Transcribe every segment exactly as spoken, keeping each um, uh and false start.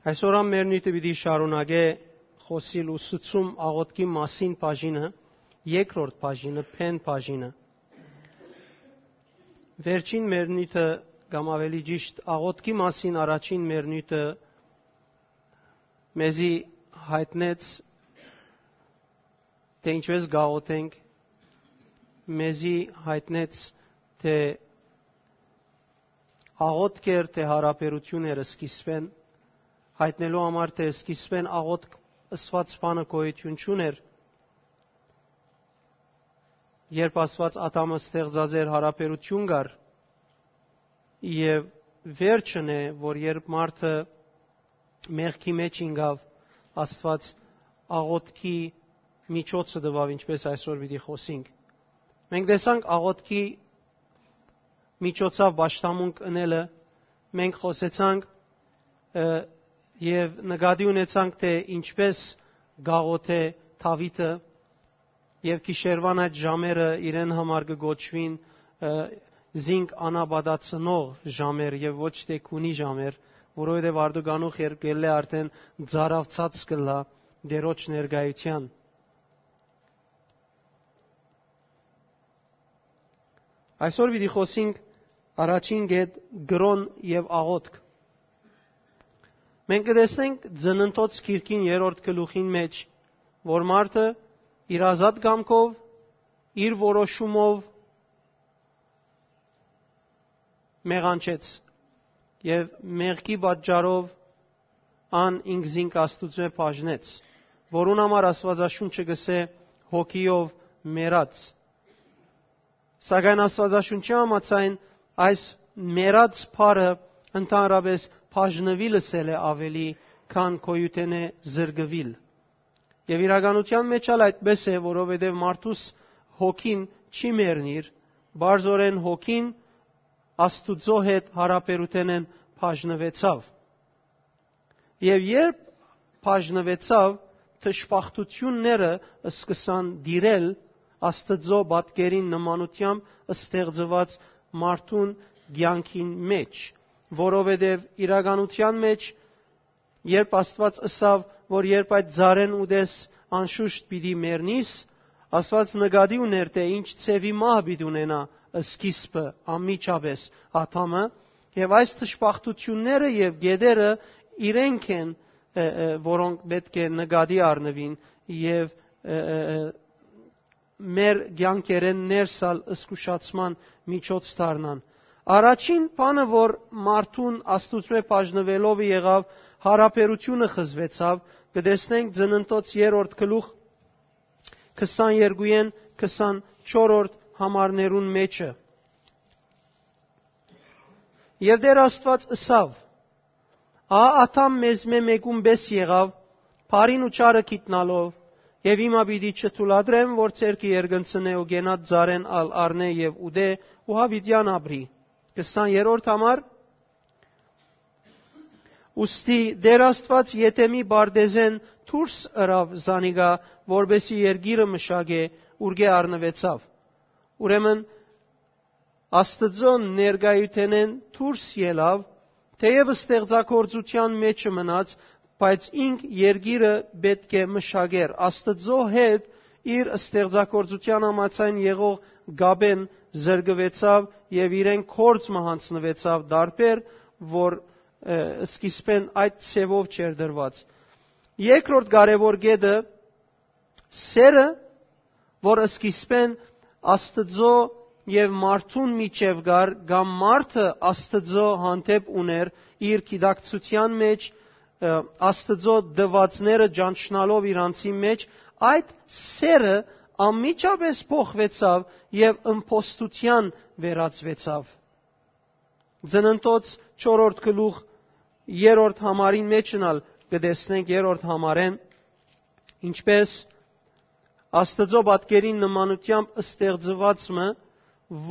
Այսօր ան մեր նիւթը պիտի շարունակէ խօսիլ ուսուցում աղօթքի մասին բաժինը, երկրորդ բաժինը, փեն բաժինը։ Վերջին մեր նիւթը, կամ ավելի ճիշտ, աղօթքի մասին առաջին մեր նիւթը մեզի յայտնեց, թէ ինչպէս կաղօթենք, մեզի յայտնեց, թէ աղօթք էր, թէ յարաբերություն էր սկիզբեն, յայտնելու համար, թէ սկիզբեն աղօթք ըսուած բանը գոյութիւն չունէր, երբ Աստուած Ադամը ստեղծած էր, յարաբերություն կար, եւ վերջն է, որ երբ մարդը մեղքի մեջ ինկաւ, Աստուած աղօթքի միջոցը տուաւ, ինչպէս այսօր պիտի խօսենք։ Մենք տեսանք աղօթքի միջոցով պաշտամունք ընելը, մենք խօսեցանք, ը, եւ նկատի ունեցանք, թէ ինչպէս կաղօթէ Դաւիթը, եւ գիշերուան այդ ժամերը իրեն համար կը կոչուին, ը, զինք անապատացնող ժամեր եւ ոչ թէ քունի ժամեր, որովհետեւ արտուկանուխ երբ կ'ելլէ արդէն ծարաւցած կ'ըլլայ Տէրոջ ներկայութեան։ Այսօր պիտի խօսենք առաջին կետ՝ կրօն եւ աղօթք։ Մենք կը տեսնենք Ծննդոց գիրքին երրորդ գլուխին մեջ, որ մարդը իր ազատ կամքով, իր որոշումով մեղանչեց եւ մեղքի պատճառով ան ինքզինք Աստուծմէ բաժնեց, որուն համար Աստուածաշունչը կ'ըսէ՝ հոգիով մեռած։ Սակայն Աստուածաշունչի համաձայն, այս մեռած բառը ընդհանրապէս բաժնուիլ ըսել է աւելի, քան գոյութենէ զրկուիլ։ Եւ իրականութեան մեջ ալ այդպէս է, որովհետեւ մարդուս հոգին չի մեռնիր, պարզօրէն հոգին Աստուծոյ հետ յարաբերութենէն բաժնուեցաւ։ Եւ երբ բաժնուեցաւ, դժբախտութիւնները սկսան տիրել Աստուծոյ պատկերին նմանութեամբ ստեղծուած մարդուն կեանքին մեջ, որովհետեւ իրականութեան մեջ, երբ Աստուած ըսաւ, որ երբ այդ ծառէն ուտես, անշուշտ պիտի մեռնիս, Աստուած նկատի ունէր, թէ ինչ ձեւի մահ պիտի ունենայ սկիզբը անմիջապէս Ադամը, եւ այս դժբախտութիւնները եւ կետերը իրենք են, ը, ը, որոնք պէտք է նկատի առնուին եւ, ը, ը, ը, մեր կեանքերէն ներս ալ զգուշացման միջոց դառնան։ Առաջին բանը, որ մարդուն Աստուծմէ բաժնուելով եղաւ, յարաբերությունը խզուեցաւ, կը տեսնենք Ծննդոց երրորդ գլուխ քսաներկուին քսանչորսերորդ համարներուն մեջը։ Եւ Տէր Աստուած ըսաւ. «Ա, Ադամ մեզմէ մէկուն պէս եղաւ, բարին ու չարը գիտնալով, եւ հիմա պիտի չթուլատրեմ, որ ձեռքը երկնցնէ ու կենաց ծառէն ալ առնէ եւ ուտէ ու յաւիտեան ապրի»։ Քսաներորդ համար. Ուստի Տէր Աստուած Եդեմի պարտէզէն դուրս ըրաւ զանիկա, որպէսզի երկիրը մշակէ, ուրկէ առնուեցաւ։ Ուրեմն, Աստուծոյ ներկայութենէն դուրս ելաւ, թէեւ ստեղծագործութեան մէջը մնաց, բայց ինք երկիրը պէտք է մշակէր։ Աստուծոյ հետ իր ստեղծագործութեան համաձայն եղող կապէն զրկուեցաւ եւ իրեն գործ մը յանձնուեցաւ տարբեր, որ, ը, սկիզբէն այդ ձևով չէր դրուած։ Երկրորդ կարեւոր կետը՝ սերը, որ սկիզբէն Աստուծոյ եւ մարդուն միջեւ կար, կամ մարդը Աստուծոյ հանդէպ ունէր իր գիտակցութեան մեջ, ը, Աստուծոյ տուածները ճանչնալով իր անձին մեջ, այդ սերը անմիջապէս փոխուեցաւ եւ ըմբոստութեան վերածուեցաւ։ Ծննդոց չորրորդ գլուխ երրորդ համարին մեջն ալ կը տեսնենք, երրորդ համարէն, ինչպէս Աստուծոյ պատկերին նմանութեամբ ստեղծուած մը,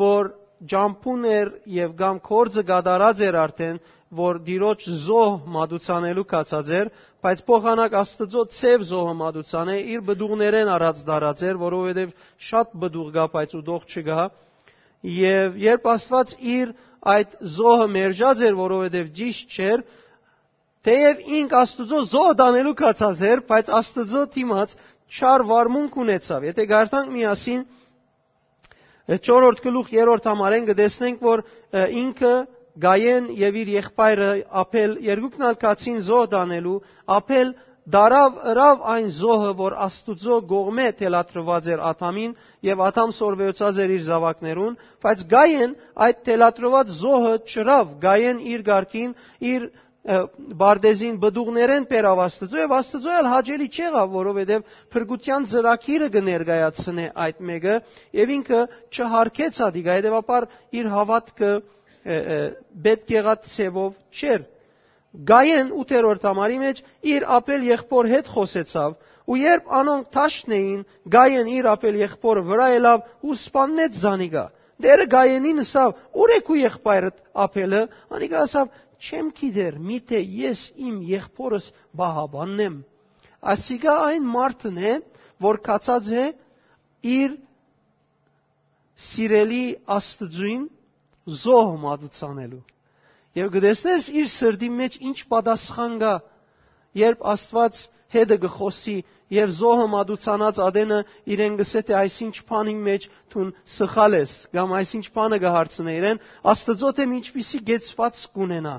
որ ճամբուն էր եւ կամ գործը կատարած էր արդէն, որ Տիրոջ զոհ մատուցանելու կացած էր, բայց փոխանակ Աստուծոյ ձեւ զոհը մատուցանէ, իր պտուղներէն առած դարած էր, որովհետեւ շատ պտուղ կայ, բայց ուտող չկայ։ Եւ երբ Աստուած իր այդ զոհը մերժած էր, որովհետեւ ճիշտ չէր, Թէեւ ինք Աստուծոյ զոհ տանելու կացած էր, բայց Աստուծոյ դիմաց չար վարմունք ունեցաւ։ Եթէ կարդանք միասին, չորրորդ գլուխ, երրորդ համարէն, կը տեսնենք, որ, ը, ինքը, Կայեն եւ իր եղբայրը Աբէլ, երկուքն ալ գացին զոհ տանելու։ Աբէլ տարաւ, ըրաւ այն զոհը, որ Աստուծոյ կողմէ թելադրուած էր Ադամին, եւ Ադամ սորվեցած էր իր զաւակներուն, բայց Կայեն այդ թելադրուած զոհը չըրաւ։ Կայեն իր կարգին, իր, ը, պարտեզին պտուղներէն բերաւ Աստուծոյ, եւ Աստուծոյ ալ հաճելի չեղաւ, որովհետեւ փրկութեան ծրագիրը կը ներկայացնէ այդ մէկը, եւ ինքը չհարգեց ատիկա, հետեւաբար իր հաւատքը, ը, ը, պէտք եղած ձեւով չէր։ Կայեն ութերորդ համարի մէջ իր Աբէլ եղբոր հետ խօսեցաւ, ու երբ անոնք դաշտն էին, Կայեն իր Աբէլ եղբորը վրայ ելաւ ու սպաննեց զանիկա։ Տէրը Կայենին ըսաւ. «Ո՞ւր է քու եղբայրդ Աբէլը»։ Անիկա ըսաւ. «Չեմ գիտեր, միթէ ես իմ եղբորս պահապանն եմ»։ Ասիկա այն մարդն է, որ գացած է իր սիրելի Աստուծոյին զոհ մատուցանելու։ Եւ կը տեսնես իր սրտին մէջ ինչ պատասխան կայ, երբ Աստուած հետը կը խօսի, եւ զոհը մատուցանած ատենը իրեն կ'ըսէ թէ այսինչ բանին մէջ դուն սխալ ես, կամ այսինչ բանը կը հարցնէ իրեն, Աստուծոյ թէ ինչպիսի կեցուածք կ'ունենայ։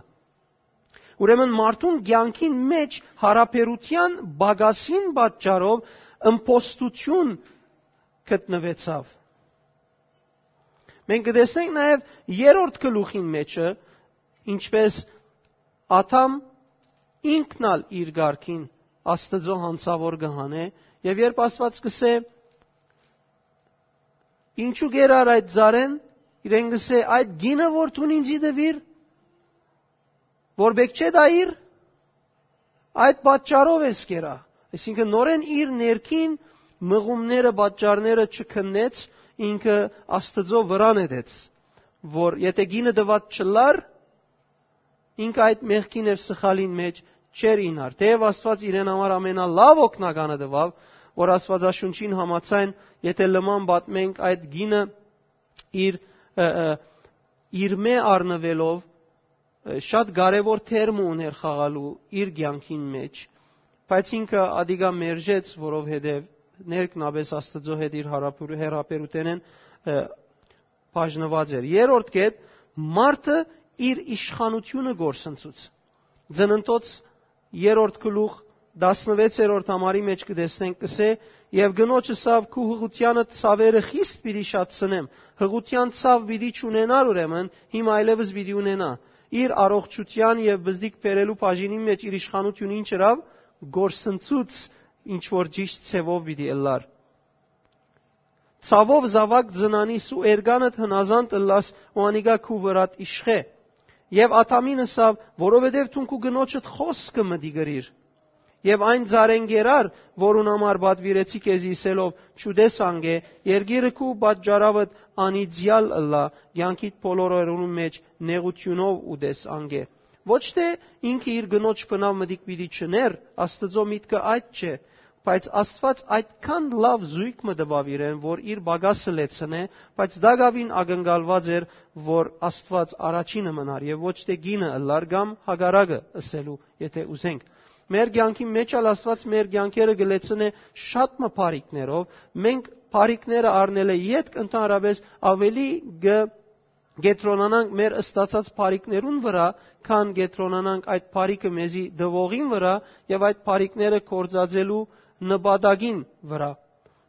Ուրեմն մարդուն կեանքին մէջ յարաբերութեան պակասին պատճառով ըմբոստութիւն գտնուեցաւ։ Մենք կը տեսնենք նաեւ երրորդ գլուխին մէջը, ինչպէս Ադամ ինքն ալ իր կարգին Աստուծոյ յանցաւոր կը հանէ, եւ երբ Աստուած կ'ըսէ. «Ինչու կերար այդ ծառէն»։ Իրեն կ'ըսէ. «Այդ գինը որ դուն ինծի տուիր, որ պէտք չէ տայիր, այդ պատճառով ես կերա»։ Այսինքն նորէն իր ներքին մղումները, պատճառները չքննեց, ինքը Աստուծոյ վրայ նետեց, որ եթէ գինը տուած չըլլար, ինքը այդ մեղքին եւ սխալին մէջ չէր իյնար։ Թէեւ Աստուած իրեն համար ամենալաւ օգնականը տուաւ, որ Աստուածաշունչին համաձայն, եթէ լման պատմենք, այդ գինը իր, ը, ը, իրմէ առնուելով, ը, շատ կարեւոր թեր մը ունէր խաղալու իր կեանքին մէջ, բայց ինքը ատիկա մերժեց, որովհետեւ ներքնապէս Աստուծոյ հետ իր յարաբեր-, հեռաբերութենէն, ը, բաժնուած էր։ Երրորդ կետ, մարդը իր իշխանութիւնը կորսնցուց։ Ծննդոց երրորդ գլուխ, տասնվեցերորդ համարի մէջ կը տեսնենք, կ'ըսէ. «Եւ կնոջ ըսաւ. "Քու յղութեանդ ցաւերը խիստ պիտի շատցնեմ"։ Յղութեան ցաւ պիտի չունենար ուրեմն, հիմա այլեւս պիտի ունենայ"։ Իր առողջութեան եւ բզդիկ բերելու բաժինին մէջ իր իշխանութիւնը ինչ ըրաւ, կորսնցուց, ինչ որ ճիշդ ձեւով պիտի ըլլար։ Ցաւով զաւակ ծնանիս ու էրկանդ հնազանդ ըլլաս ու անիկա քու վրադ իշխէ"։ Եւ Ադամին ըսաւ. "Որովհետեւ դուն քու կնոջդ խօսքը մտի կրիր։ Եւ այն ծառէն կերար, որուն համար պատուիրեցի քեզի ըսելով. "Չուտես անգէ", երկիրը քու պատճառավդ անիծեալ ըլլայ, կեանքիդ բոլոր օրերուն մէջ նեղութիւնով ուտես անգէ"։ Ոչ թէ ինքը իր կնոջ բնաւ մտիկ պիտի չներ, Աստուծոյ միտքը այդ չէ, բայց Աստուած այդքան լաւ զոյգ մը տուաւ իրեն, որ իր պակասը լեցնէ, բայց տակաւին ակնկալուած էր, որ Աստուած առաջինը մնար եւ ոչ թէ կինը ըլլար կամ հակառակը ըսելու, եթէ ուզենք։ Մեր կեանքի մէջ ալ Աստուած մեր կեանքերը կը լեցնէ շատ մը բարիքներով, մենք բարիքները առնելէ ետք ընդհանրապես աւելի կը կեդրոնանանք մեր ստացած բարիքներուն վրայ, քան կեդրոնանանք այդ բարիքը մեզի տուողին վրայ եւ այդ բարիքները գործածելու նպատակին վրայ։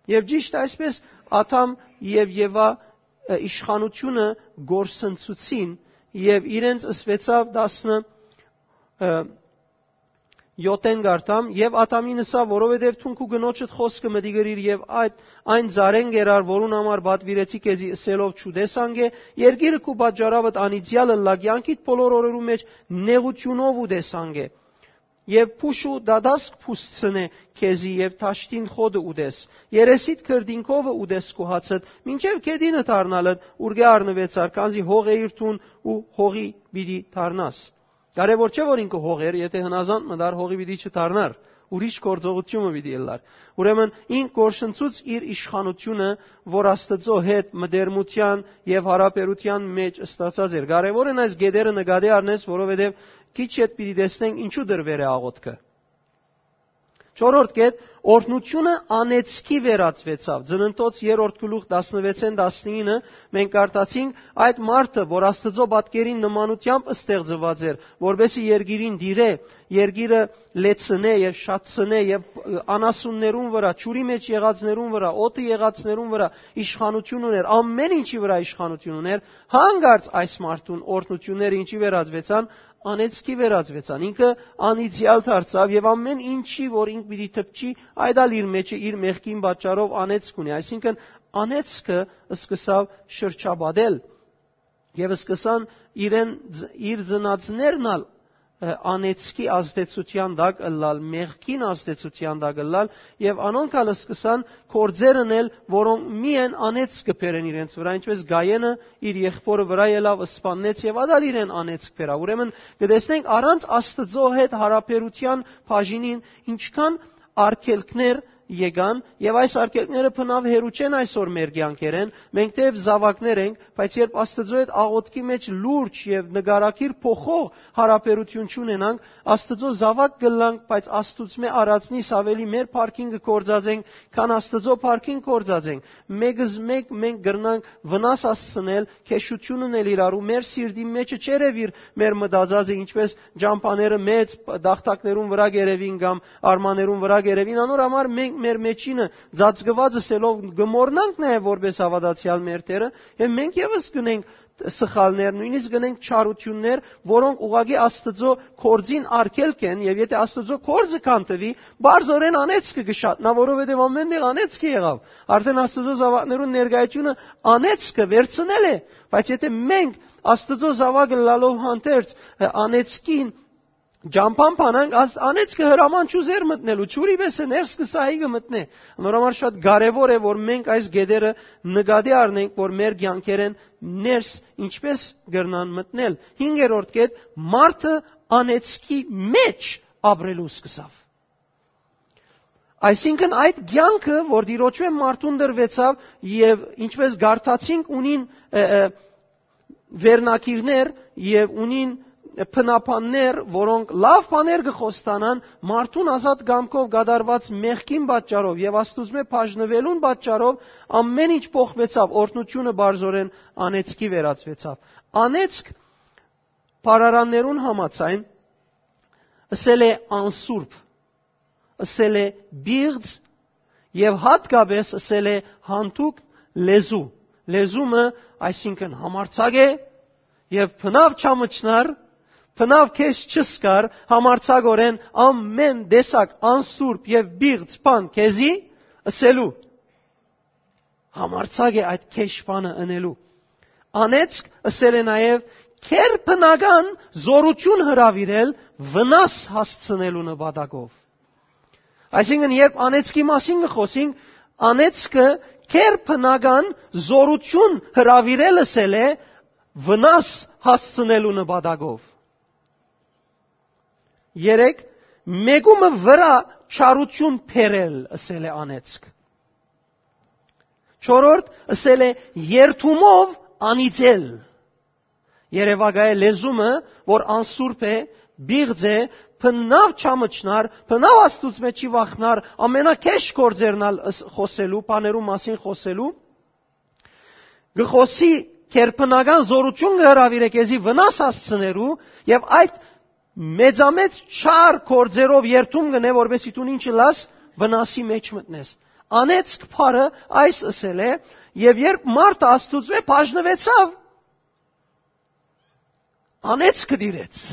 Եւ ճիշդ այսպես Ադամ եւ Եվա, ը, իշխանութիւնը կորսնցուցին եւ իրենց ըսուեցաւ տասնը, ը, յոթ կարդամ. "Եւ Ադամին ըսաւ. "Որովհետեւ դուն քու կնոջդ խօսքը մտի կրիր եւ այդ այն ծառէն կերար, որուն համար պատուիրեցի քեզի ըսելով. "Չուտես անգէ", երկիրը քու պատճառավդ անիծեալ ըլլայ, կեանքիդ բոլոր օրերուն մէջ նեղութիւնով ուտես անգէ"։ Եւ փուշ ու դատասկ փուսցնէ քեզի եւ դաշտին խոտը ուտես, երեսիդ քրտինքովը ուտես քու հացդ, մինչեւ գետինը դառնալդ, ուրկէ առնուեցար, քանզի հող էիր դուն ու հողի պիտի դառնաս"։ Կարեւոր չէ որ ինքը հող էր, եթէ հնազանդ մտար, հողի պիտի չդառնար, ուրիշ գործողութիւնը պիտի ըլլար։ Ուրեմն ինք կորսնցուց իր իշխանութիւնը, որ Աստուծոյ հետ մտերմութեան եւ յարաբերութեան մէջ ստացած էր։ Կարեւոր են այս գետերը նկատի առնես, որովհետեւ քիչ յետ պիտի տեսնենք ինչու դրուեր է աղոթքը։ Չորրորդ կետ, օրհնութիւնը անեծքի վերածուեցաւ։ Ծննդոց երրորդ գլուխ տասնվեցէն տասնինը մենք կարդացինք, այդ մարդը, որ Աստուծոյ պատկերին նմանութեամբ ստեղծուած էր, որպէսզի երկիրին տիրէ, երկիրը լեցնէ եւ շատցնէ եւ անասուններուն վրայ, ջուրի մէջ եղածներուն վրայ, օդը եղածներուն վրայ իշխանութիւն ունէր, ամէն ինչի վրայ իշխանութիւն ունէր, հանկարծ այս մարդուն օրհնութիւնները ինչի վերածուեցան, անեծքի վերածուեցան։ Ինքը անիծեալ դարձաւ եւ ամէն ինչի, որ ինք պիտի դպչի, այդ ալ իր մեջը, իր մեղքին պատճառով անեծք ունի։ Այսինքն անեծքը սկսաւ շրջապատել եւ սկսան իրեն, իր ծնածներն ալ, ը, անեծքի ազդեցութեան տակ ըլլալ, մեղքին ազդեցութեան տակ ըլլալ, եւ անոնք ալ սկսան գործեր ընել, որոնք միայն անեծք կը բերեն իրենց վրայ, ինչպէս Գայենը իր եղբորը վրայ ելաւ, սպաննեց եւ ադալ իրեն անեծք բերաւ։ Ուրեմն կը տեսնենք, առանց Աստուծոյ հետ յարաբերութեան բաժինին ինչքան արգելքներ եկան, եւ այս արգելքները բնաւ հեռու չեն այսօր մեր կեանքերէն։ Մենք թեեւ զաւակներ ենք, բայց երբ Աստուծոյ հետ աղոթքի մէջ լուրջ եւ նկարագիր փոխող յարաբերութիւն չունենանք, Աստուծոյ զաւակ կ'ըլլանք, բայց Աստուծմէ առածնիս աւելի մեր փառքին կը գործածենք, քան Աստուծոյ փառքին գործածենք։ Մեկը, մեկ մենք կրնանք վնաս հասցնել, քեշութիւն ընել իրարու, մեր սիրտին մէջը չերեւիր մեր մտածածը, ինչպէս ճամբաները մեծ տախտակներուն վրայ կ'երեւին կամ արմաներուն վրայ կ'երեւին, անոր համար մենք մեր մեջինը ծածկուած ըսելով կը մոռնանք նաեւ որպէս հաւատացեալ մեր Տէրը, եւ մենք եւս կ'ընենք սխալներ, նոյնիսկ կ'ընենք չարութիւններ, որոնք ուղղակի Աստուծոյ գործին արգելք են, եւ եթէ Աստուծոյ գործը քանդուի, բարձորեն անեծքը կը շատնայ, որովհետեւ ամէն տեղ անեծքը եղաւ։ Արդէն Աստուծոյ զաւակներուն ներկայութիւնը անեծքը վերցնել է, բայց եթէ մենք Աստուծոյ զաւակը լալով հանդերձ, ը, անեծքին ճամբան բանանք, աս-, անեծքը հրաման չուզեր մտնելու, ջուրի պէս է ներս կը սահի կը մտնէ։ Անոր համար շատ կարեւոր է, որ մենք այս գետերը նկատի առնենք, որ մեր կեանքերէն ներս ինչպէս կրնան մտնել։ Հինգերորդ կետ, մարդը անեծքի մէջ ապրելու սկսաւ։ Այսինքն այդ կեանքը, որ Տիրոջմէ մարդուն տրուեցաւ եւ ինչպէս կարդացինք, ունին, ը, ը, վերնագիրներ եւ ունին բնաբաններ, որոնք լաւ բաներ կը խոստանան մարդուն ազատ կամքով կատարուած մեղքին պատճառով եւ Աստուծմէ բաժնուելուն պատճառով, ամէն ինչ փոխուեցաւ, օրհնութիւնը բարձորեն անեծքի վերածուեցաւ։ Անեծք բառարաններուն համաձայն ըսել է անսուրբ, ըսել է պիղծ եւ յատկապէս ըսել է յանցուկ լեզու։ Լեզումը, այսինքն, համարձակ է եւ բնաւ չամչնար, բնաւ քեզ չսկար, համարձակօրէն ամէն տեսակ անսուրբ եւ պիղծ բան քեզի ըսելու։ Համարձակ է այդ քեշ բանը ընելու։ Անեծք ըսել է նաեւ քերբնական զօրութիւն հրաւիրել վնաս հասցնելու նպատակով։ Այսինքն, երբ անեծքի մասին կը խօսենք, անեծքը քերբնական զօրութիւն հրաւիրել ըսել է վնաս հասցնելու նպատակով։ Երեք, մեկումը վրայ չարութիւն բերել ըսել է անեծք։ Չորրորդ, ըսել է երդումով անիծել։ Երևակայ է լեզումը, որ անսուրբ է, պիղծ է, բնաւ չամչնար, բնաւ Աստուծմէ չի վախնար, ամենաքեշ գործերն ալ ըս-, խօսելու, բաներու մասին խօսելու, կը խօսի քերբնական զօրութիւն կը հրաւիրէ քեզի վնաս հասցնելու եւ այդ մեծամեծ չար գործերով երդում կ'ընէ, որպեսզի դուն ինչ ըլլաս, վնասի մէջ մտնես։ Անեծք բառը այս ըսել է, եւ երբ մարդը Աստուծմէ բաժնուեցաւ, անեծքը տիրեց։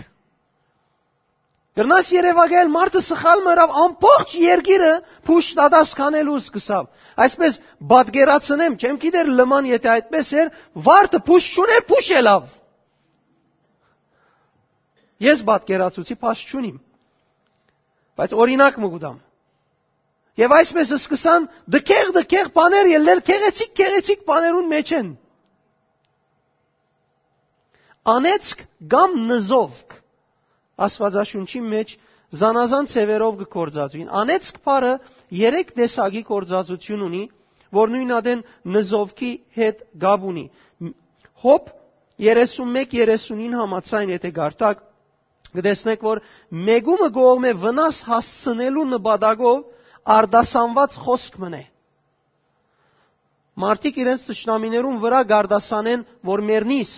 Կրնաս երևակայել, մարդը սխալ մը ըրաւ, ամբողջ երկիրը փուշտատաս քանելու սկսաւ։ Այսպես պատկերացնեմ, չեմ գիտեր լման, եթէ այդպես էր, վարդը փուշ չունէր, փուշ ելաւ։ Ես պատկերացուցի, փաշ չունիմ, բայց օրինակ մը կուտամ։ Եւ այսպես սկսան դքեղ-դքեղ բաներ ելնել, գեղեցիկ-գեղեցիկ բաներուն մեջ են։ Անեծք կամ նզովք։ Աստուածաշունչին մէջ զանազան ձեւերով կը գործածուին։ Անեծք բառը երեք տեսակի գործածութիւն ունի, որ նոյն ատեն նզովքի հետ կապ ունի։ Հոբ երեսունմեկ երեսունին համաձայն, եթե կարդաք, կը տեսնեք, որ մեկումը կողմէ վնաս հասցնելու նպատակով արտասանուած խօսք մըն է։ Մարդիկ իրենց թշնամիներուն վրայ կարտասանեն, որ մեռնիս։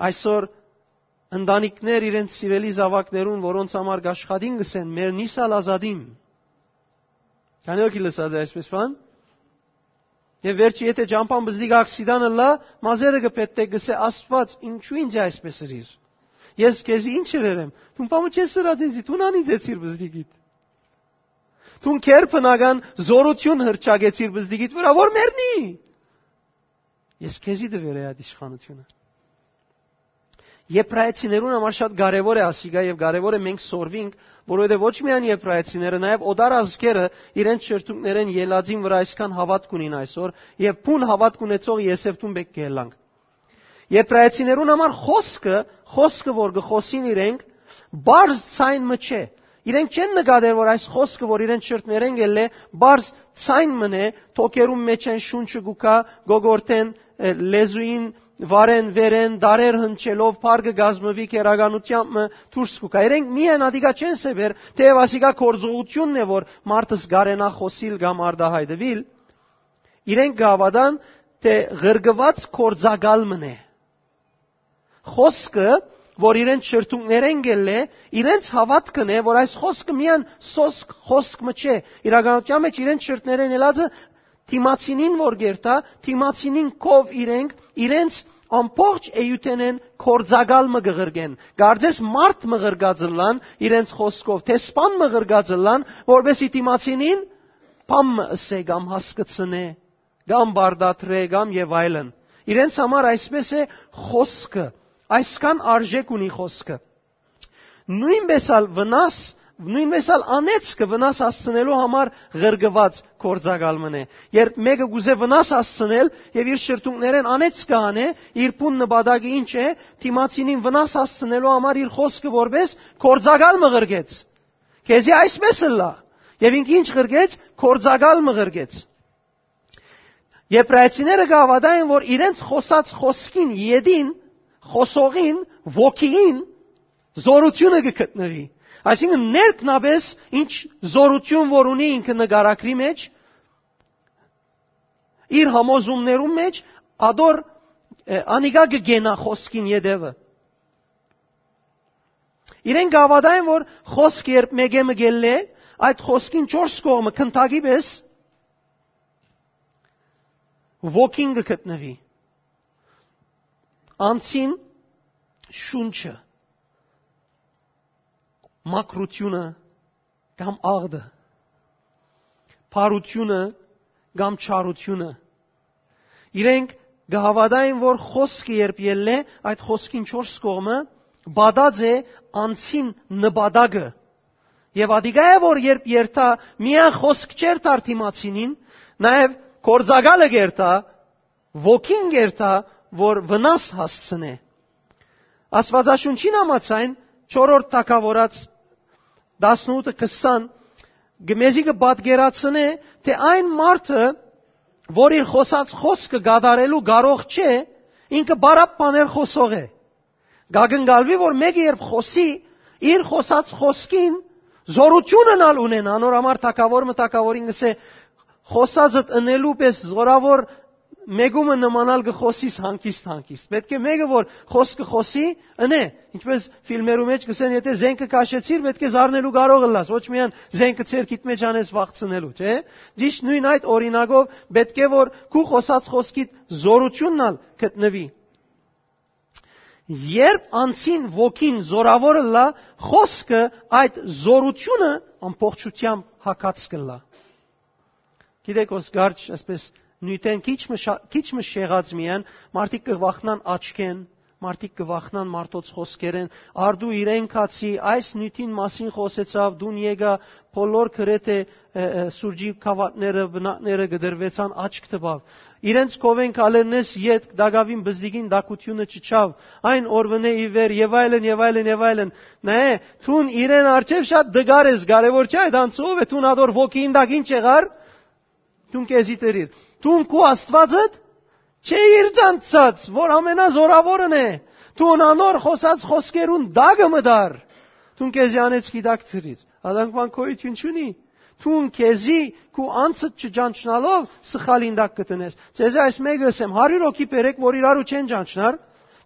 Այսօր ընտանիքներ իրենց սիրելի զաւակներուն, որոնց համար կաշխատին, կ'ըսեն, «Մեռնիս ալ ազատին»։ Քանի՞ ոգի լսած է այսպես բան։ Եւ վերջը, եթե ճամբան պզտիկ ակսիդան ըլլայ, մազերը կը փետտէ, կ'ըսէ, «Աստուած, ինչու ինձ այսպես ըրիր։ Ես քեզի ինչ ըրեր եմ։ Դուն բան չես ըրած ինձի, դուն անիծեցիր պզտիկիդ։ Դուն քեր բնական զօրութիւն հրճակեցիր պզտիկիդ վրայ, որ մեռնի։ Ես քեզի տուեր էի այդ իշխանութիւնը»։ Եբրայեցիներուն համար շատ կարեւոր է ասիկա եւ կարեւոր է մենք սորվինք, որովհետեւ ոչ միայն եբրայեցիները, նաեւ օտար ազգերը իրենց շրթունքներէն ելածին վրայ այսքան հաւատք ունին այսօր, եւ բուն հաւատք ունեցող Եսեւտուն պէտք է ելանք։ Եբրայեցիներուն համար խօսքը, խօսքը, որ կը խօսին իրենք, պարզ ձայն մը չէ։ Իրենք չեն նկատեր, որ այս խօսքը, որ իրենց շրթներէն ելլէ, պարզ ձայն մըն է, թոքերուն մէջէն շունչը կու գայ, գոգորտէն, ը, լեզուին, վարեն, վերեն, դարեր հնչելով, փառ կը կազմուի, քերականութեամբ մը դուրս կու գայ։ Իրենք միայն ատիկա չեն սեւեր, թէեւ ասիկա գործողութիւնն է, որ մարդս կարենայ խօսիլ կամ արտայայտուիլ, իրենք կը հաւատան, թէ ղրկուած գործակալ մըն է։ Խօսքը, որ իրենց շրթունքներէն ելլէ, իրենց հաւատքն է, որ այս խօսքը միայն սոսկ խօսք մը չէ։ Իրականության մէջ իրենց շրթներէն ելածը դիմացինին որ կերթայ, դիմացինին քով իրենք իրենց ամբողջ էութենէն գործակալ մը կը ղրկեն։ Կարծես մարդ մը ղրկած ըլլան իրենց խօսքով, դեսպան մը ղրկած ըլլան, որպեսզի դիմացինին բան մը ըսէ կամ հասկցնէ, կամ պարտադրէ, կամ եւ այլն։ Իրենց համար այսպես է խօսքը, այսքան արժէք ունի խօսքը։ Նոյնպես ալ վնաս, նոյնպես ալ անեծքը վնաս հասցնելու համար ղրկուած գործակալ մըն է։ Երբ մէկը կ'ուզէ վնաս հասցնել եւ իր շրթունքներէն անեծքը անէ, իր բուն նպատակը ինչ է, դիմացինին վնաս հասցնելու համար իր խօսքը որպես գործակալ մը ղրկեց։ Քեզի այսպես ըլլայ։ Եւ ինք ինչ ղրկեց, գործակալ մը ղրկեց։ Եբրայեցիները կը հաւատային, որ իրենց խօսած խօսքին ետին, խօսողին, ոգիին զօրութիւնը կը գտնուի։ Այսինքն ներքնապէս ինչ զօրութիւն որ ունի ինքը նկարագրի մեջ, իր համոզումներուն մեջ, ադոր, ը, անիկա կը կենայ խօսքին ետեւը։ Իրենք կը հաւատային, որ խօսք երբ մէկէ մը կ'ելլէ, այդ խօսքին չորս կողմը քնթակի պէս ոգին կը գտնուի։ Անձին շունչը, մաքրութիւնը կամ աղտը, բարութիւնը կամ չարութիւնը։ Իրենք կը հաւատային, որ խօսքը երբ ելլէ, այդ խօսքին չորս կողմը պատած է անձին նպատակը։ Եւ ատիկա է, որ երբ երթայ, միայն խօսք չերթար դիմացինին, նաեւ գործակալը կերթայ, ոգին կերթայ, որ վնաս հասցնէ։ Աստուածաշունչին համաձայն, չորրորդ թագաւորաց տասնութը քսան, կը մեզի կը պատկերացնէ, թէ այն մարդը, որ իր խօսած խօսքը կատարելու կարող չէ, ինքը բարապ բաներ խօսող է։ Կակնկալուի, որ մէկը երբ խօսի, իր խօսած խօսքին զօրութիւնն ալ ունեն, անոր համար թագաւոր մը թագաւորին կ'ըսէ, «Խօսածդ ընելու պէս զօրաւոր մէկումը նմանալ կը խօսիս հանգիստ-հանգիստ»։ Պէտք է մէկը, որ խօսքը խօսի, ընէ, ինչպես ֆիլմերու մեջ կ'ըսեն, եթե զենքը քաշեցիր, պէտք է զարնելու կարող ըլլաս, ոչ միայն զենքը ձեռքիդ մեջ անես վախցնելու, չէ՞։ Ճիշդ նոյն այդ օրինակով պէտք է, որ քու խօսած խօսքիդ զօրութիւնն ալ գտնուի։ Երբ անձին ոգին զօրաւոր ըլլայ, խօսքը այդ զօրութիւնը ամբողջութեամբ հագած կ'ըլլայ։ Գիտեք, Օսկարջ, այսպես նիւթեն քիչ մը շա-, քիչ մը շեղած միայն, մարդիկ կը վախնան աչքեն, Մարդիկ կը վախնան մարդոց խօսքերէն։ Արդու իրեն կացի այս նիւթին մասին խօսեցաւ, դուն եկայ, բոլոր գրեթէ, ը, ը, սուրճի գաւաթները, բնակները կտրուեցան, աչք տուաւ։ Իրենց քովէն քալերնէս ետք տակաւին բզդիկին տաքութիւնը չիջաւ, այն օրուընէ ի վեր, եւ այլն, եւ այլն, եւ այլն։ Նայէ, դուն իրեն առջեւ շատ դգար ես, կարեւոր չէ այդ անցը ով է, դուն ատոր ոգին տակ ինչ եղար, դուն քեզի դրիր։ Դուն քու Աստուածդ չէիր ճանչցած, որ ամենազորաւորն է։ Դուն անոր խօսած խօսքերուն տակը մտար։ Դուն քեզի անեծքի տակ դրիր։ Ատանքման գոյութիւն չունի։ Դուն քեզի քու անձդ չճանչնալով սխալին տակ կը տնես։ Ձեզի այս մեկը ըսեմ, հարիւր հոգի բերեք, որ իրարու չեն ճանչնար,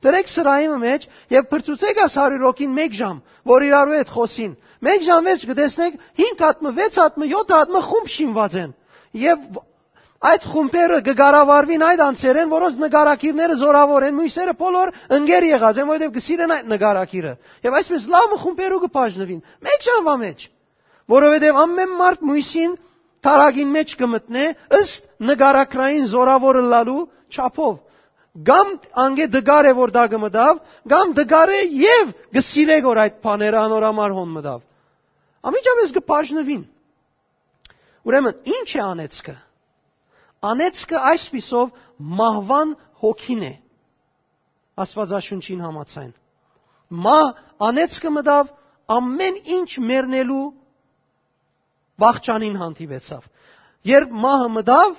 դրեք սրահի մը մէջ եւ փրցուցեք այս հարիւր հոգին մէկ ժամ, որ իրարու հետ խօսին։ Մէկ ժամ վերջ կը տեսնեք, հինգ հատ մը, վեց հատ մը, յոթ հատ մը խումբ շինուած են։ Եւ այդ խումբերը կը կառավարուին այդ անձերէն, որոնց նկարագիրները զորաւոր են, մյուսերը բոլոր ընկեր եղած են, որովհետեւ կը սիրեն այդ նկարագիրը։ Եւ այսպես լաւ մը խումբերու կը բաժնուին։ Մէկ ժամվա մէջ, որովհետեւ ամէն մարդ մյուսին թարակին մէջ կը մտնէ ըստ նկարագրային զորաւոր ըլլալու չափով։ Կամ անգէ դգար է, որ դա կը մտաւ, կամ դգար է եւ կը սիրէ, որ այդ բաները անոր համար հոն մտաւ։ Անմիջապէս կը բաժնուին։ Ուրեմն, ի՞նչ է անեծքը։ Անեծքը այսպիսով մահուան հոգին է, Աստուածաշունչին համաձայն։ Մահ անեծքը մտաւ, ամէն ինչ մեռնելու վախճանին հանդիպեցաւ։ Երբ մահը մտաւ,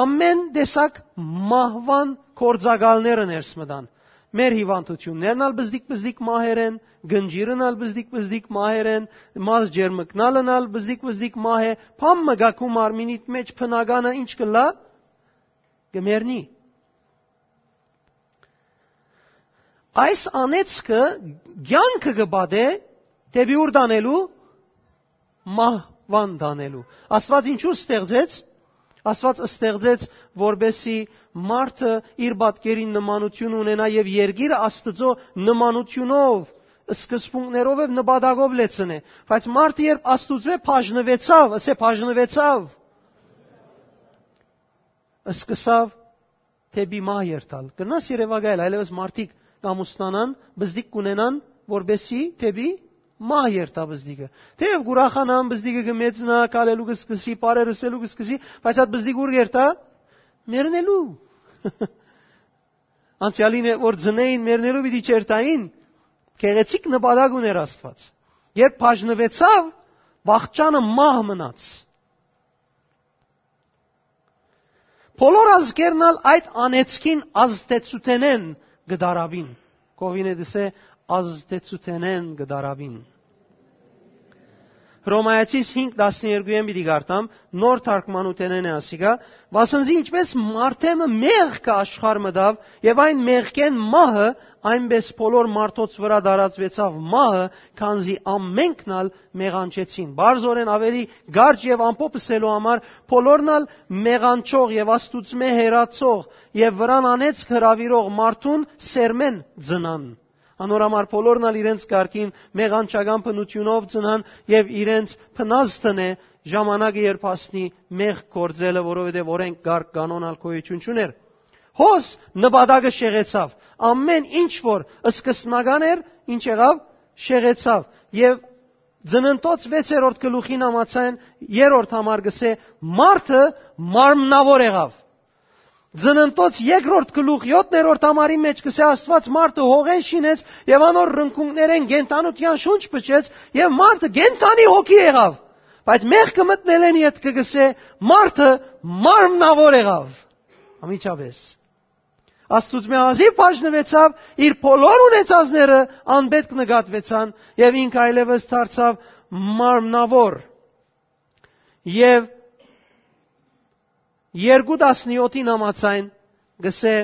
ամէն տեսակ մահուան գործակալները ներս մտան։ Մեր հիվանդութիւններն ալ բզդիկ-բզդիկ մահեր են, գնջիրն ալ բզդիկ-բզդիկ մահեր են, մազ ջերմկնալն ալ բզդիկ-բզդիկ մահ է, բան մը գա քու մարմինիդ մէջ, բնականը ինչ կ'ըլլայ, կը մեռնի։ Այս անեծքը կեանքը կը պատէ դէպի ուր տանելու, մահուան տանելու։ Աստուած ինչու ստեղծեց։ Աստուած ստեղծեց, որպեսզի մարդը իր պատկերին նմանութիւն ունենայ եւ երկիրը Աստուծոյ նմանութիւնով, սկզբունքներով եւ նպատակով լեցնէ։ Բայց մարդը երբ Աստուծմէ բաժնուեցաւ, ասէ, բաժնուեցաւ, սկսաւ դէպի մահ երթալ։ Կրնաս երեւակայել, այլեւս մարդիկ կ'ամուսնանան, բզդիկ կ'ունենան, որպեսզի դէպի մահ երթայ բզդիկը։ Թէեւ կ'ուրախանան, բզդիկը կը մեծնայ, քալելու կը սկսի, բառեր ըսելու կը սկսի, բայց այդ բզդիկ ուր կ'երթայ, մեռնելու։ Անցեալին է, որ ծնէին, մեռնելու պիտի չերթային, գեղեցիկ նպատակ ունէր Աստուած։ Երբ բաժնուեցաւ, վախճանը մահ մնաց։ Բոլոր ազգերն ալ այդ անեծքին ազդեցութենէն կը դարաւին։ Կովին է դսե, ազդեցութենէն կը դարաւին։ Հռոմայացիս հինգ տասներկուէն պիտի կարդամ, նոր թարգմանութենէն է ասիկա, վասն զի ինչպես մարդէ մը մեղքը աշխարհ մտաւ, եւ այն մեղքէն մահը, այնպես բոլոր մարդոց վրայ տարածուեցաւ մահը, քանզի ամենքն ալ մեղանչեցին։ Բարձորեն ավելի կարճ եւ ամփոփ ըսելու համար, բոլորն ալ մեղանչող եւ Աստուծմէ հեռացող եւ վրան անեծք հրաւիրող մարդուն սերմէն ծնան։ Անոր համար բոլորն ալ իրենց կարգին մեղանչական բնութիւնով ծնան եւ իրենց բնազդն է ժամանակը երբ հասնի մեղք գործելը, որովհետեւ օրենք կարգ կանոն ալ գոյութիւն չունէր։ Հոս նպատակը շեղեցաւ։ Ամէն ինչ որ սկզբնական էր, ինչ եղաւ, շեղեցաւ։ Եւ Ծննդոց վեցերորդ գլուխին համաձայն երրորդ համար կ'ըսէ. «Մարդը մարմնաւոր եղաւ»։ Ծննդոց երկրորդ գլուխ յոթերորդ համարի մէջ կ'ըսէ. «Աստուած մարդը հողէն շինեց եւ անոր ռնկունքներէն կենդանութեան շունչ փչեց եւ մարդը կենդանի հոգի եղաւ»։ Բայց մեղքը մտնելէն ետքը կ'ըսէ. «Մարդը մարմնաւոր եղաւ»։ Անմիջապէս Աստուծմէ հազիւ բաժնուեցաւ, իր բոլոր ունեցածները անպետք նկատուեցան եւ ինք այլեւս դարձաւ մարմնաւոր։ Եւ երկու տասնյոթին համաձայն կ'ըսէ.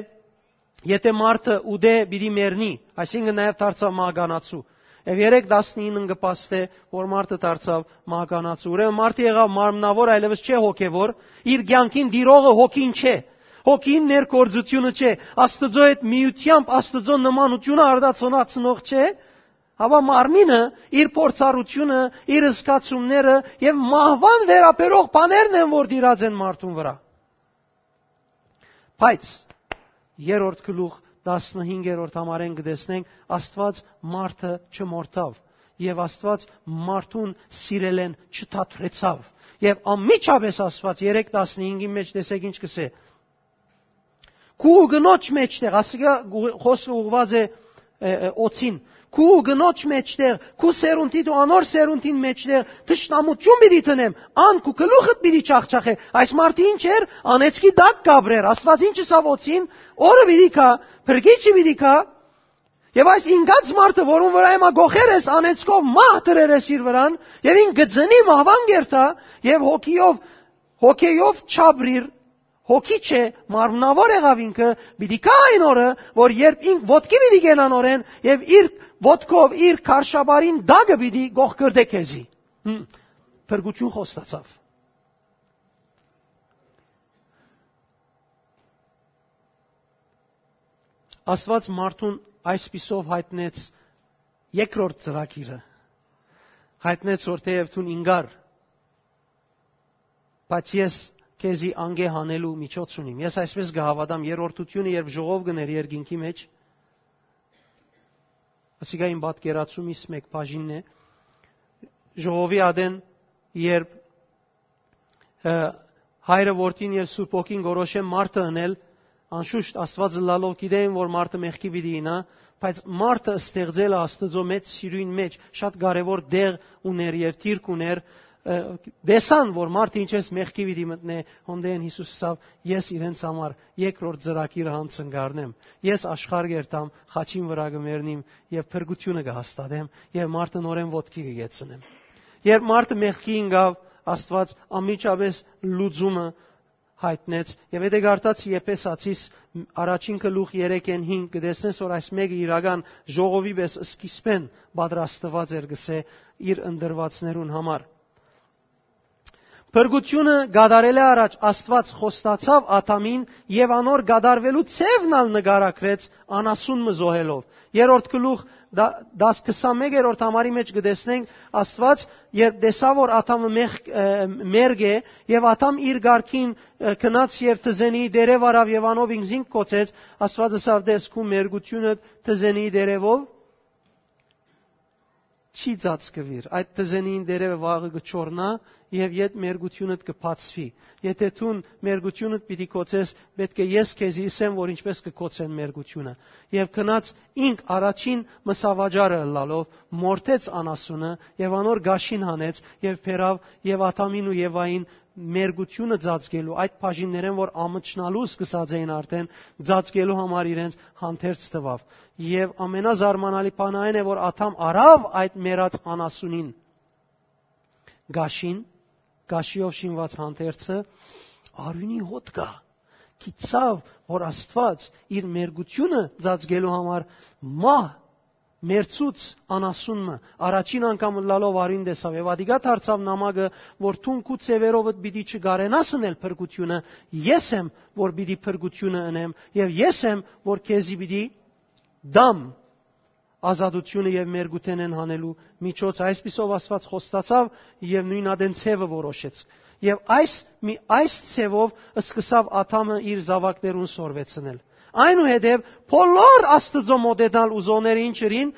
«Եթէ մարդը ուտէ, պիտի մեռնի», այսինքն նաեւ դարձաւ մահկանացու։ Եւ երեք տասնինն կը փաստէ, որ մարդը դարձաւ մահկանացու։ Ուրեմն մարդը եղաւ մարմնաւոր, այլեւս չէ հոգեւոր, իր կեանքին տիրողը հոգին չէ, հոգին ներգործությունը չէ, Աստուծոյ հետ միությամբ Աստուծոյ նմանութիւնը արտացոլացնող չէ, հապա մարմինը, իր փորձառութիւնը, իր զգացումները եւ մահուան վերաբերող բաներն են, որ տիրած են մարդուն վրայ։ Բայց երրորդ գլուխ տասնհինգերորդ համարէն կը տեսնենք, Աստուած մարդը չմորթաւ եւ Աստուած մարդուն սիրելէն չթատրեցաւ։ Եւ անմիջապէս Աստուած, երեք տասնհինգին մէջ տեսեք ինչ կսէ. «Քու կնոջ մէջտեղ», ասիկա գու-, խօսքը ուղղուած է, ը, ը, օծին, «քու կնոջ մէջտեղ, քու սերունդիդ ու անոր սերունդին մէջտեղ թշնամութիւն պիտի դնեմ, ան քու գլուխդ պիտի չախչախէ»։ Այս մարդը ինչ էր, անեծքի տակ կ'ապրեր։ Աստուած ինչ ըսաւ օծին, օրը պիտի գայ, փրկիչը պիտի գայ, եւ այս ինկած մարդը, որուն վրայ հիմա գոխեր ես, անեծքով մահ դրեր ես իր վրան, եւ ինք կը ծնի, մահուան կ'երթայ, եւ հոգիով, հոգեով չապրիր, հոգի չէ, մարմնաւոր եղաւ ինքը, պիտի գայ այն օրը, որ երբ ինք ոտքի պիտի կենան օրէն, եւ իր ոտքով, իր քարշապարին տակը պիտի գողկրտէ քեզի։ Հմ, փրկութիւն խոստացաւ։ Աստուած մարդուն այսպիսով յայտնեց երկրորդ ծրագիրը, յայտնեց, որ թէեւ դուն ինկար, բայց ես քեզի անկէ հանելու միջոց ունիմ։ Ես այսպես կը հաւատամ, երրորդությունը, երբ ժողով կ'ընէր երկինքի մէջ, ասիկա իմ պատկերացումիս մէկ բաժինն է, ժողովի ատեն, երբ, ը, Հայրը, Որդին եւ Սուրբ Հոգին կորոշեն մարդը ընել, անշուշտ Աստուած ըլլալով գիտէին, որ մարդը մեղքի պիտի իյնայ, բայց մարդը ստեղծելը Աստուծոյ մեծ սիրոյն մէջ շատ կարեւոր տեղ ունէր եւ դիրք ունէր, ը, տեսան, որ մարդը ինչպես մեղքի պիտի մտնէ, հոնդէն Յիսուս ըսաւ. «Ես իրենց համար երկրորդ ծրագիրը յանցնկարնեմ։ Ես աշխարհ կ'երթամ, խաչին վրայ կը մեռնիմ եւ փրկութիւնը կը հաստատեմ եւ մարդը նորէն ոտքի կը կեցնեմ»։ Երբ մարդը մեղքի ինկաւ, Աստուած անմիջապէս լուծումը յայտնեց, եւ եթե կարդաց Եփեսացիս առաջին գլուխ երեքէն հինգ, կը տեսնես, որ այս մէկը իրական ժողովի պէս սկիզբէն պատրաստուած էր, կսէ, իր ընտրուածներուն համար։ Փրկութիւնը կատարելէ առաջ Աստուած խոստացաւ Ադամին եւ անոր կատարուելու ձեւն ալ նկարագրեց անասուն մը զոհելով։ Երրորդ գլուխ դա-, դաս քսանմեկերորդ համարի մէջ կը տեսնենք Աստուած, երբ տեսաւ, որ Ադամը մեղ-, ը, մերկ է, եւ Ադամ իր կարգին, ը, գնաց եւ թզենիի տերեւ առաւ եւ անով ինքզինք կոչեց, Աստուած ըսաւ. «Տես, քու մերկութիւնը թզենիի տերեւով չի ծածկուիր, այդ թզենին տերևը վաղը կը չորնայ եւ յետ մերկութիւնդ կը բացուի։ Եթէ դուն մերկութիւնդ պիտի կոչես, պէտք է ես քեզի ըսեմ, որ ինչպես կը կոչեն մերկութիւնը»։ Եւ գնաց ինք առաջին մսավաճառը ըլլալով, մորթեց անասունը եւ անոր գաշին հանեց եւ բերաւ եւ Ադամին ու Եվային մերկութիւնը ծածկելու, այդ բաժիններէն, որ ամչնալու սկսած էին արդեն, ծածկելու համար իրենց հանդերձ տուաւ։ Եւ ամենազարմանալի բանը այն է, որ Ադամ առաւ այդ մեռած անասունին գաշին, գաշիով շինուած հանդերձը, արիւնի հոտ կայ, գիտցաւ, որ Աստուած իր մերկութիւնը ծածկելու համար մահ մերցուց անասուն մը, առաջին անգամ ըլլալով արիւն տեսաւ եւ ատիկա դարձաւ նամակը, որ դուն քու ձեւերովդ պիտի չկարենաս ընել փրկութիւնը, ես եմ, որ պիտի փրկութիւնը ընեմ եւ ես եմ, որ քեզի պիտի տամ ազատութիւնը եւ մերկութենէն հանելու միջոց։ Այսպիսով Աստուած խոստացաւ եւ նոյն ատեն ձեւը որոշեց։ Եւ այս, մի, այս ձևով սկսաւ Ադամը իր զաւակներուն սորվեցնել։ Այնուհետեւ բոլոր Աստուծոյ մոտենալ ուզողները ինչ ըրին,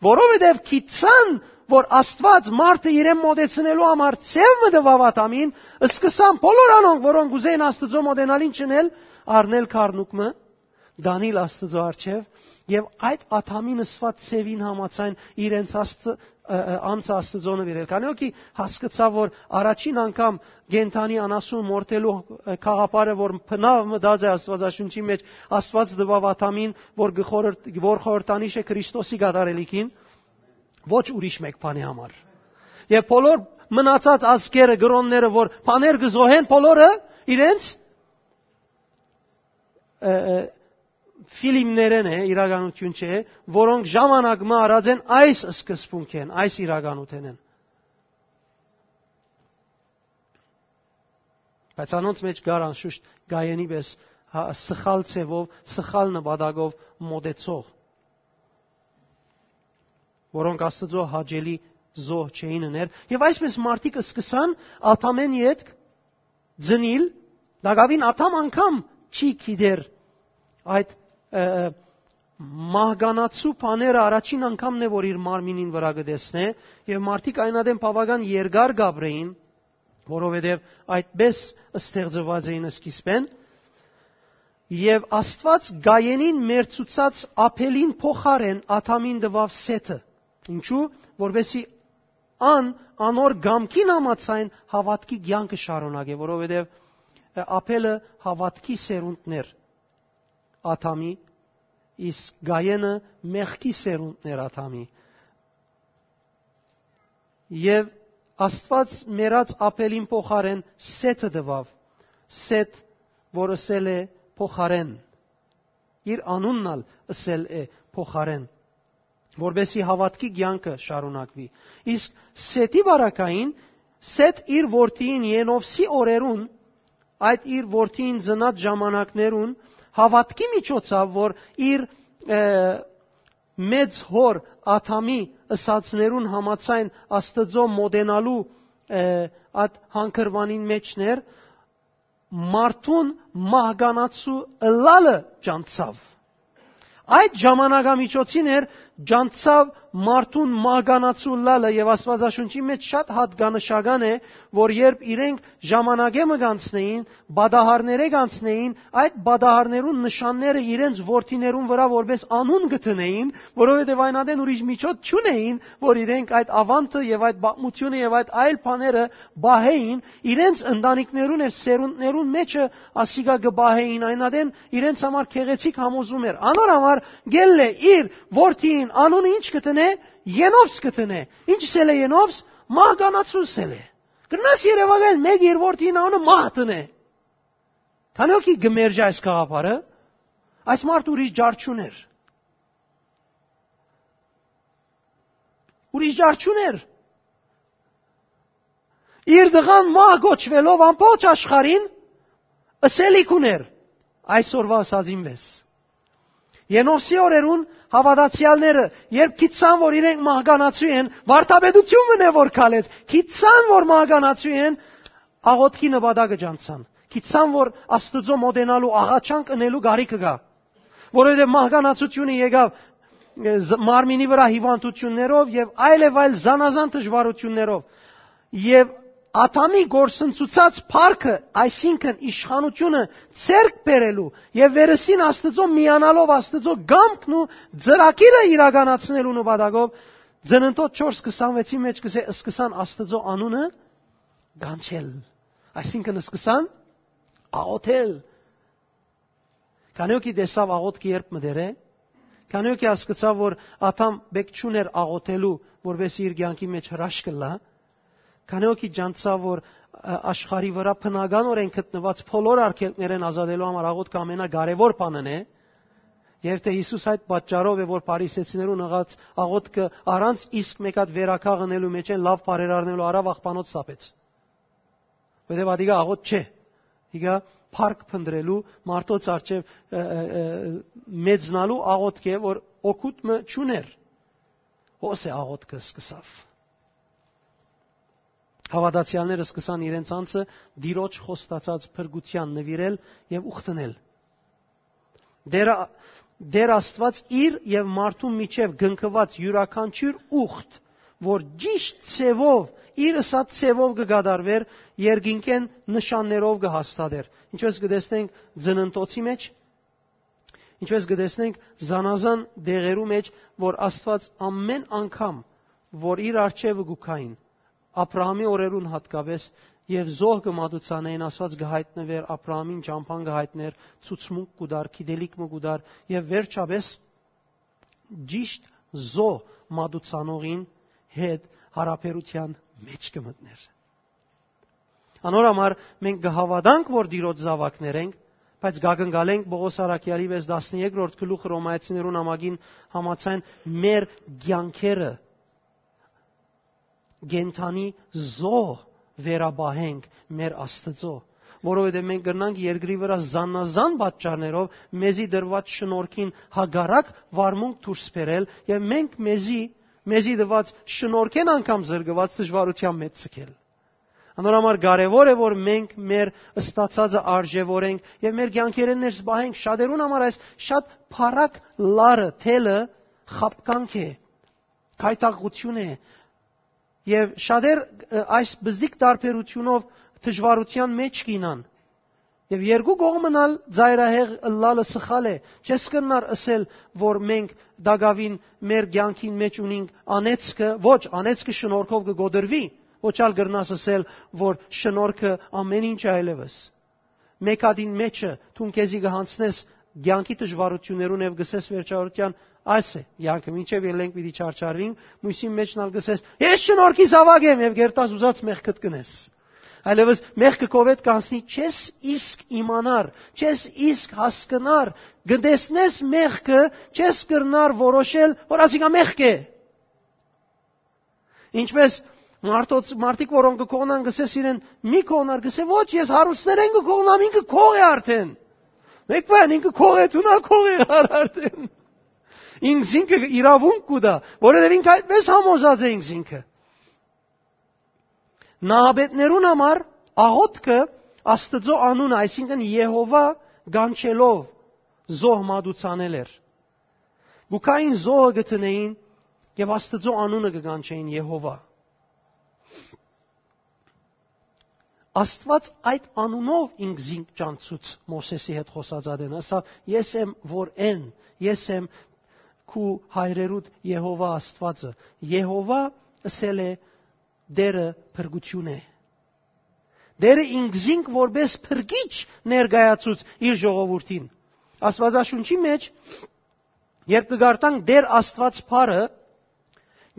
որովհետեւ գիտցան, որ Աստուած մարդը իրեն մոտեցնելու համար ձև մը տուաւ Ադամին, սկսան բոլոր անոնք, որոնք ուզեն Աստուծոյ մոտենալ, ինչ ընել, առնել քառնուկ մը, դանիլ Աստուծոյ առջեւ, եւ այդ Ադամին ըսուած ձևին համաձայն իրենց Աստծը, ը, ը, անձը Աստուծոյ նուիրել։ Քանի որ կի հասկցաւ, որ առաջին անգամ կենդանի անասուն մորթելու, ը, գաղափարը, որ բնաւ մտած է Աստուածաշունչի մեջ, Աստուած տուաւ Ադամին, որ գ-, խորհրդ-, որ խորհրդանիշ է Քրիստոսի կատարելիքին, ոչ ուրիշ մէկ բանի համար։ Եւ բոլոր մնացած ազգերը, կրոնները, որ բաներ կը զոհեն, բոլորը իրենց, ը, ը, ֆիլմներէն է, իրականութիւն չէ, որոնք ժամանակ մը առած են այս սկզբունքէն, այս իրականութենէն։ Բայց անոնց մէջ կար անշուշտ Կայենի պէս, հա, սխալ ձևով, սխալ նպատակով մոտեցող, որոնք Աստուծոյ հաճելի զոհ չէին ըներ։ Եւ այսպես մարդիկ սկսան Ադամէն ետք ծնիլ, տակաւին Ադամ անգամ չի գիտեր այդ, ը, ը, մահկանացու բաները առաջին անգամն է, որ իր մարմինին վրայ կը տեսնէ, եւ մարդիկ այն ատեն բաւական երկար կ'ապրէին, որովհետեւ այդպէս ստեղծուած էին սկիզբէն, եւ Աստուած Կայենին մերձուցած Աբէլին փոխարէն Ադամին տուաւ Սեթը։ Ինչու՞, որպեսզի ան անոր կամքին համաձայն հաւատքի կեանքը շարունակէ, որովհետեւ Աբէլը հաւատքի սերունդն էր Ադամի, իսկ Կայենը մեղքի սերունդն էր Ադամի։ Եւ Աստուած մեռած Աբէլին փոխարէն Սեթը տուաւ, Սեթ, որ ըսել է փոխարէն, իր անունն ալ ըսել է փոխարէն, որպեսզի հաւատքի կեանքը շարունակուի։ Իսկ Սեթի պարագային, Սեթ իր որդիին Ենովսի օրերուն, այդ իր որդիին ծնած ժամանակներուն, հաւատքի միջոցաւ, որ իր, ը, մեծ հօր Ադամի ըսածներուն համաձայն Աստուծոյ մօտենալու, ը, այդ հանգրուանին մէջն էր, մարդուն մահկանացու ըլլալը ճանչցաւ։ Այդ ժամանակամիջոցին էր ճանչցաւ մարդուն մահկանացու ըլլալը, եւ Աստուածաշունչի մէջ շատ յատկանշական է, որ երբ իրենք ժամանակէ մը կանցնէին, պատահարներէ կանցնէին, այդ պատահարներուն նշանները իրենց որդիներուն վրայ որպես անուն կը դնէին, որովհետեւ այն ատեն ուրիշ միջոց չունէին, որ իրենք այդ աւանդը եւ այդ պատմությունը եւ այդ այլ բաները պահէին, իրենց ընտանիքներուն եւ սերունդներուն մէջը ասիկա կը պահէին, այն ատեն իրենց համար գեղեցիկ համոզում էր։ Անոր համար գելլէ իր որդիին անունը ինչ կը դնէ, Ենովս կը դնէ։ Ինչ ըսել է Ենովս, մահկանացու ըսել է։ Կրնաս երեւակայել մէկ իր որդին անունը մահ դնէ։ Քանի՞ հոգի կը մերժէ այս գաղափարը, այս մարդ ուրիշ ջար չունէր։ Ուրիշ ջար չունէր։ Իր տղան մահ կոչուելով ամբողջ աշխարհին ըսելիք ուներ այսօրվա ըսածին վես։ Ենովսի օրերուն հաւատացեալները, երբ գիտցան, որ իրենք մահկանացու են, վարդապետություն մնե որ քալեց, գիտցան, որ մահկանացու են, աղոթքի նպատակը ճանչցան։ Գիտցան, որ Աստուծոյ մոտենալու աղաչանք ընելու կարիքը կայ, որովհետեւ մահկանացությունը եկաւ, ը, զ-, մարմինի վրայ հիւանդութիւններով եւ այլ եւ այլ զանազան դժուարութիւններով։ Եւ Ադամի գործընծուցած փառքը, այսինքն իշխանությունը ձեռք բերելու եւ վերստին Աստուծոյ միանալով Աստուծոյ կամքն ու ծրագիրը իրականացնելու նպատակով, Ծննդոց չորս քսանվեցի մէջ կ'ըսէ, սկսան Աստուծոյ անունը կանչել, այսինքն սկսան աղոթել։ Քանի՞ հոգի տեսաւ աղոթքը երբ մը դեր է, քանի՞ հոգի հասկցաւ, որ Ադամ պէտք չունէր աղոթելու, որպեսզի իր կեանքի մէջ հրաշք ըլլայ, քանի՞ հոգի ճանչցաւ, որ, ը, աշխարհի վրայ բնականորեն գտնուած բոլոր արգելքներէն ազատելու համար աղոթքը ամենակարեւոր բանն է, եւ թէ Յիսուս այդ պատճառով է, որ փարիսեցիներուն ըսած աղոթքը առանց իսկ մէկ հատ վերականգ ընելու մէջէն լաւ բարերարնելու արաւ աղբանոց սապեց։ Որովհետեւ ատիկա աղոթք չէ, ատիկա փառք փնտրելու մարդոց առջեւ, ը, ը, ը, մեծնալու աղոթք է, որ օգուտ մը չունէր։ Հոս է աղոթքը սկսաւ։ Հաւատացեալները սկսան իրենց անձը Տիրոջ խոստացած փրկութեան նուիրել եւ ուխտնել։ Տեր, Տեր Աստուած իր եւ մարդուն միջեւ կնքուած իւրաքանչիւր ուխտ, որ ճիշտ ձեւով, իր ըսած ձեւով կը կատարուէր, երկինքէն նշաններով կը հաստատէր։ Ինչպես կը տեսնենք Ծննդոցի մէջ, ինչպես կը տեսնենք զանազան դեղերու մէջ, որ Աստուած ամէն անգամ, որ իր առջեւը կու գային, Աբրահամի օրերուն յատկապէս, եւ զոհ կը մատուցանային, Աստուած կը յայտնուէր, Աբրահամին ճամբան կը յայտնէր, ցուցմունք կու տար, գիտելիք մը կու տար, եւ վերջապէս ճիշտ զոհ մատուցանողին հետ յարաբերութեան մէջ կը մտնէր։ Անոր համար մենք կը հաւատանք, որ Տիրոջ զաւակներ ենք, բայց կակնկալենք Պողոս առաքեալի վեց տասներկրորդ գլուխը Ռոմայեցիներուն ամագին համաձայն մեր կեանքերը կենդանի զոհ վերապահենք մեր Աստծոյ, որովհետեւ մենք կրնանք երկրի վրայ զանազան պատճառներով մեզի տրուած շնորհքին հակառակ վարմունք դուրս բերել եւ մենք մեզի, մեզի տված շնորհքէն անգամ զրկուած դժուարութեան մեջ ձգել։ Անոր համար կարեւոր է, որ մենք մեր ստացածը արժեւորենք եւ մեր կեանքերէն ներս պահենք։ Շատերուն համար այս շատ փառակ լարը, թելը խաբկանք է, գայթակղութիւն է։ Եւ շատեր, ը, այս բզդիկ տարբերութիւնով դժուարութեան մէջ կ'ինան։ Եւ երկու կողմն ալ ծայրահեղ ըլլալը սխալ է։ Չես կրնար ըսել, որ մենք տակաւին մեր կեանքին մէջ ունինք անեծքը, ոչ, անեծքը շնորհքով կը կոտրուի, ոչ ալ կրնաս ըսել, որ շնորհքը ամէն ինչ այլեւս։ Մէկ հատին մէջը դուն քեզի կը յանցնես կեանքի դժուարութիւններուն եւ կ'ըսես վերջավորութեան. «Այս է կեանքը, մինչեւ ելենք պիտի չարչարվինք», մոյսին մէջն ալ կ'ըսես. «Ես շնորհքի զաւակ եմ», եւ կերտաս ուզած մեղքդ կ'ընես։ Այլեւս մեղքը քովեդ կանցնի, չես իսկ իմանար, չես իսկ հասկնար, կը տեսնես մեղքը, չես կրնար որոշել, որ ասիկա մեղք է։ Ինչպէս մարդոց, մարդիկ, որոնք կը կողնան, կ'ըսես իրեն. «Մի կողնար», կ'ըսե. «Ոչ, ես հարուստներէն կը կողնամ, ինքը կող է արդէն»։ Մէկ բան, ինքը կող է, դու նա կող է, ար արդէն։ Ինքզինքը իրաւունք կու տայ, որովհետեւ ինքը այդպէս համոզած է ինքզինքը։ Նահապետներուն համար աղօթքը Աստուծոյ անունը, այսինքն Եհովա կանչելով, զոհ մատուցանել էր։ Կու գային, զոհը կը դնէին եւ Աստուծոյ անունը կը կանչէին Եհովա։ Աստուած այդ անունով ինքզինք ճանչցուց Մովսէսի հետ խօսած ատեն, ասաւ. «Ես եմ որ են, ես եմ քու հայրերուդ Եհովա Աստուածը»։ Եհովա ըսել է Տէրը փրկութիւն է։ Տէրը ինքզինք որպէս փրկիչ ներկայացուց իր ժողովուրդին։ Աստուածաշունչի մէջ, երբ կը կարդանք Տէր Աստուած բառը,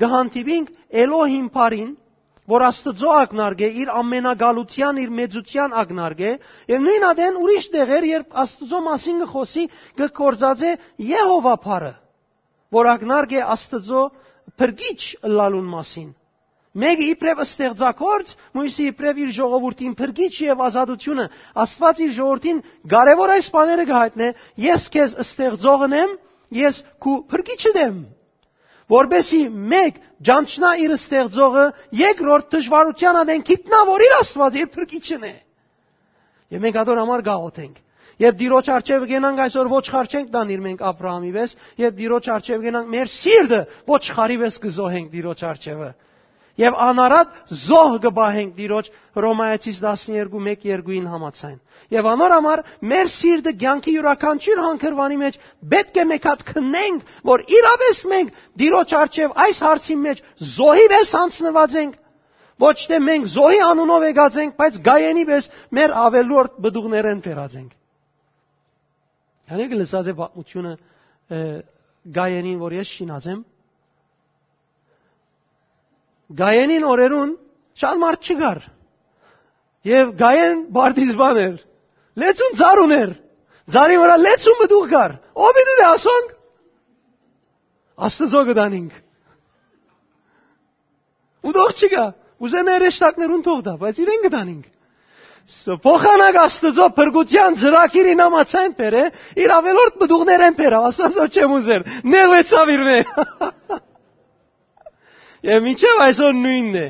կը հանդիպինք Էլոհիմ բառին, որ Աստուծոյ ակնարկէ, իր ամենակալութեան, իր մեծութեան ակնարկէ, եւ նոյն ատեն ուրիշ տեղեր, երբ Աստուծոյ մասին կը խօսի, կը գործածէ Եհովա բառը, որ ակնարկէ Աստուծոյ փրկիչ ըլլալուն մասին։ Մէկը իբրեւ ստեղծագործ, մոյսը իբրեւ իր ժողովուրդին փրկիչ եւ ազատութիւնը։ Աստուած իր ժողովուրդին կարեւոր այս բաները կը յայտնէ. «Ես քեզ ստեղծողն եմ, ես քու փրկիչդ եմ»։ Որպեսզի մէկ ճանչնայ իր ստեղծողը, երկրորդ դժուարութեան ատեն գիտնայ, որ իր Աստուածը իր փրկիչն է։ Եւ մենք ատոր համար կաղօթենք։ Երբ Տիրոջ առջեւը կենանք այսօր, ոչխարչենք տանիր մենք Աբրահամի պէս, երբ Տիրոջ առջեւը կենանք, մեր սիրտը ոչխարի պէս կը զոհենք Տիրոջ առջեւը։ Եւ անարատ զոհ կը պահենք Տիրոջ, Հռոմայեցիս տասներկու մէկ երկուին համաձայն։ Եւ անոր համար մեր սիրտը կեանքի իւրաքանչիւր հանգրուանի մէջ պէտք է մէկ հատ քննենք, որ իրապէս մենք Տիրոջ առջեւ այս հարցին մէջ զոհի պէս յանձնուած ենք, ոչ թէ մենք զոհի անունով եկած ենք, բայց Կայենի պէս մեր աւելորդ պտուղներէն բերած ենք։ Յանի կը լսած է պատմութիւնը, ը, Կայենին, որ ես շինած եմ։ Կայենին օրերուն շատ մարդ չկար։ Եւ Կայեն պարտիզպան էր։ Լեցուն ծառ ունէր։ Ծառի վրայ լեցուն պտուղ կար։ Ո՞վ պիտի դե ասոնք։ Աստուծոյ կը տանինք։ Ու թող չկա։ Ուզեն հրեշտակներուն թող տայ, բայց իրեն կը տանինք։ Ս-, փոխանակ Աստուծոյ փրկութեան ծրագիրին համաձայն բերէ, իր աւելորդ պտուղներէն բերաւ, Աստուծոյ չեմ ուզեր, նեղուեցաւ իրմէ։ Եւ մինչեւ այսօր նոյնն է։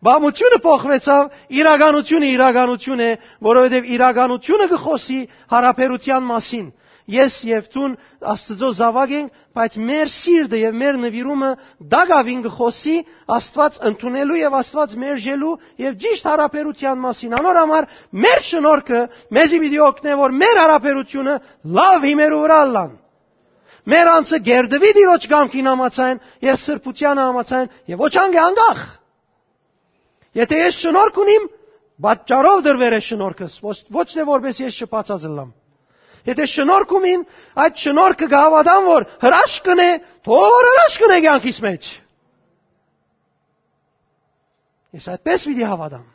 Պատմութիւնը փոխուեցաւ, իրականութիւնը իրականութիւն է, որովհետեւ իրականութիւնը կը խօսի յարաբերութեան մասին։ Ես եւ դուն Աստուծոյ զաւակ ենք, բայց մեր սիրտը եւ մեր նուիրումը տակաւին կը խօսի Աստուած ընդունելու եւ Աստուած մերժելու եւ ճիշդ յարաբերութեան մասին։ Անոր համար մեր շնորհքը մեզի պիտի օգնէ, որ մեր յարաբերութիւնը լաւ հիմերու վրայ ըլլան։ Մեր անձը կերտուի Տիրոջ կամքին համաձայն եւ սրբութեանը համաձայն եւ ոչ անգ-, անկախ։ Եթէ ես շնորհք ունիմ, պատճառով տրուեր է շնորհքս, ոչ, ոչ թէ որպէս ես շփացած ըլլամ։ Եթէ շնորհք ունիմ, այդ շնորհքը կը հաւատամ, որ հրաշք կ'ընէ, թող որ հրաշք կ'ընէ կեանքիս մէջ։ Ես այդպես պիտի հաւատամ։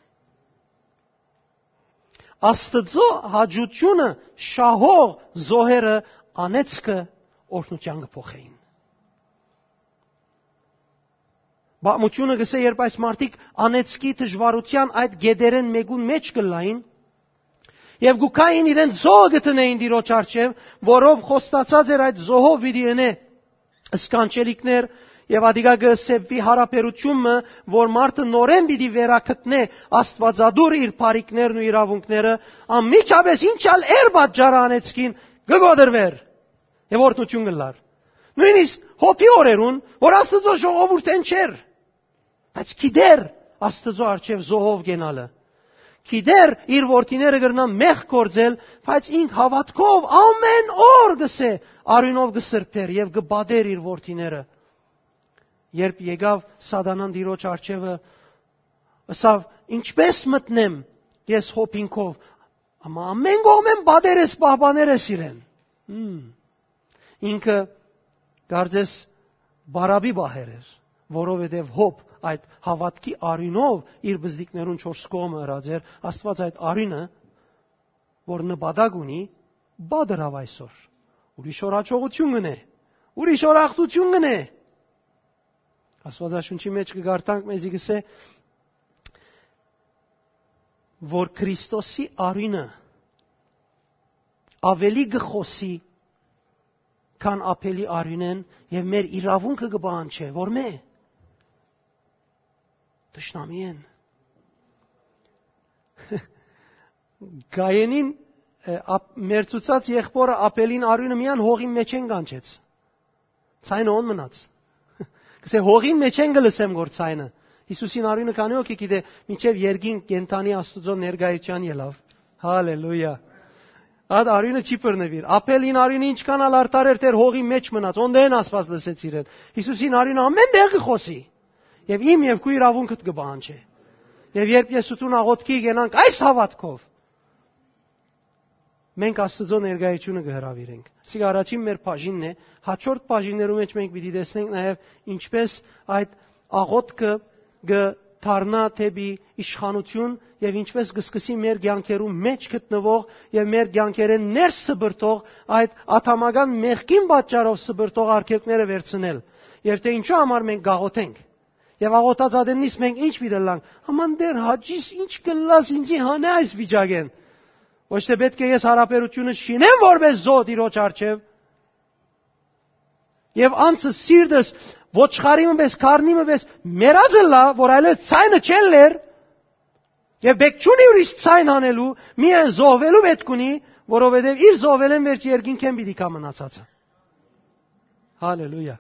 Աստուծոյ հաճութիւնը շահող զոհերը անեծքը օրհնութեան կը փոխէին։ Պատմութիւնը կ'ըսէ, երբ այս մարդիկ անեծքի դժուարութեան այդ գետերէն մէկուն մէջ կ'ըլլային, եւ կու գային իրենց զոհը կը դնէին Տիրոջ առջեւ, որով խոստացած էր այդ զոհով պիտի ընէ սքանչելիքներ Եւ ատիկա կը սեպուի յարաբերութիւն մը, որ մարդը նորէն պիտի վերագտնէ Աստուածատուրը իր բարիքներն ու իրաւունքները, անմիջապէս ինչ ալ էր պատճառը անեցքին, կը կոտրուէր եւ օրհնութիւն կ'ըլլար։ Նոյնիսկ Յոբի օրերուն, որ Աստուծոյ ժողովուրդէն չէր, բայց գիտեր Աստուծոյ առջեւ զոհով կենալը, գիտեր իր որդիները կրնան մեղք գործել, բայց ինք հաւատքով ամէն օր, կ'ըսէ, արիւնով կը սրբէր եւ կը պատէր իր որդիները։ Երբ եկաւ Սատանան Տիրոջ առջեւը, ըսաւ. «Ինչպէս մտնեմ ես Յոբին քով, ամա ամէն կողմէն պատեր ես, պահպաներ ես իրեն»։ Հմ։ Ինքը կարծես պարապի պահեր էր, որովհետեւ Յոբ այդ հաւատքի արիւնով իր բզդիկներուն չորս կողմը ըրած էր։ Աստուած այդ արիւնը, որ նպատակ ունի, պատրաւ այսօր։ Ուրիշ օր յաջողութիւն կ'ընէ, ուրիշ օր ախտութիւն կ'ընէ։ Աստուածաշունչի մէջ կը կարդանք, մեզի կ'ըսէ, որ Քրիստոսի արիւնը աւելի կը խօսի, քան Աբէլի արիւնէն, եւ մեր իրաւունքը կը պահանջէ, որ մէ, թշնամիէն։ Կայենին, ը, ապ-, մերձուցած եղբօրը Աբէլին արիւնը միայն հողին մէջէն կանչեց։ Ցայնը ո՞ն մնաց։ Կ'ըսէ, հողին մէջէն կը լսեմ գոր ցայնը։ Յիսուսին արիւնը քանի՞ հոգի գիտէ, մինչեւ երկինք կենդանի Աստուծոյ ներկայութեան ելաւ։ Հալելույա։ Այդ արիւնը չի բռնուիր։ Աբէլին արիւնը ինչքան ալ արդար էր, դեռ հողի մէջ մնաց, օնտեն Աստուած լսեց իրեն։ Յիսուսին արիւնը ամէն տեղ կը խօսի։ Եւ իմ եւ քու իրաւունքդ կը պահանջէ։ Եւ երբ ես ու դուն աղօթքի կենանք այս հաւատքով, մենք Աստուծոյ ներկայութիւնը կը հրաւիրենք։ Սիկ առաջին մեր բաժինն է, հաջորդ բաժիններու մէջ մենք պիտի տեսնենք նաեւ ինչպէս այդ աղօթքը կը դառնայ դէպի իշխանութիւն եւ ինչպէս կը սկսի մեր կեանքերու մէջ գտնուող եւ մեր կեանքերէն ներս սպրդող, այդ ադամական մեղքին պատճառով սպրդող արգելքները վերցնել, եւ թէ ինչու համար մենք կաղօթենք։ Եւ աղօթած ատեննից մենք ինչ պիտի ըլլանք։ Աման Տէր, հաճիս ինչ կ'ըլլաս, ինձի հանէ այս վիճակէն։ Ոչ թէ պէտք է ես յարաբերութիւնս շինեմ որպէս զոհ Տիրոջ առջեւ, եւ անձս, սիրտս ոչխարի մը պէս, քարնի մը պէս մեռած ըլլայ, որ այլեւս ցայնը չելլեր, եւ պէտք չունի ուրիշ ցայն հանելու, միայն զոհուելու պէտք ունի, որովհետեւ իր զոհուելէն վերջ երկինքէն պիտի գայ մնացածը։ Հալելույա։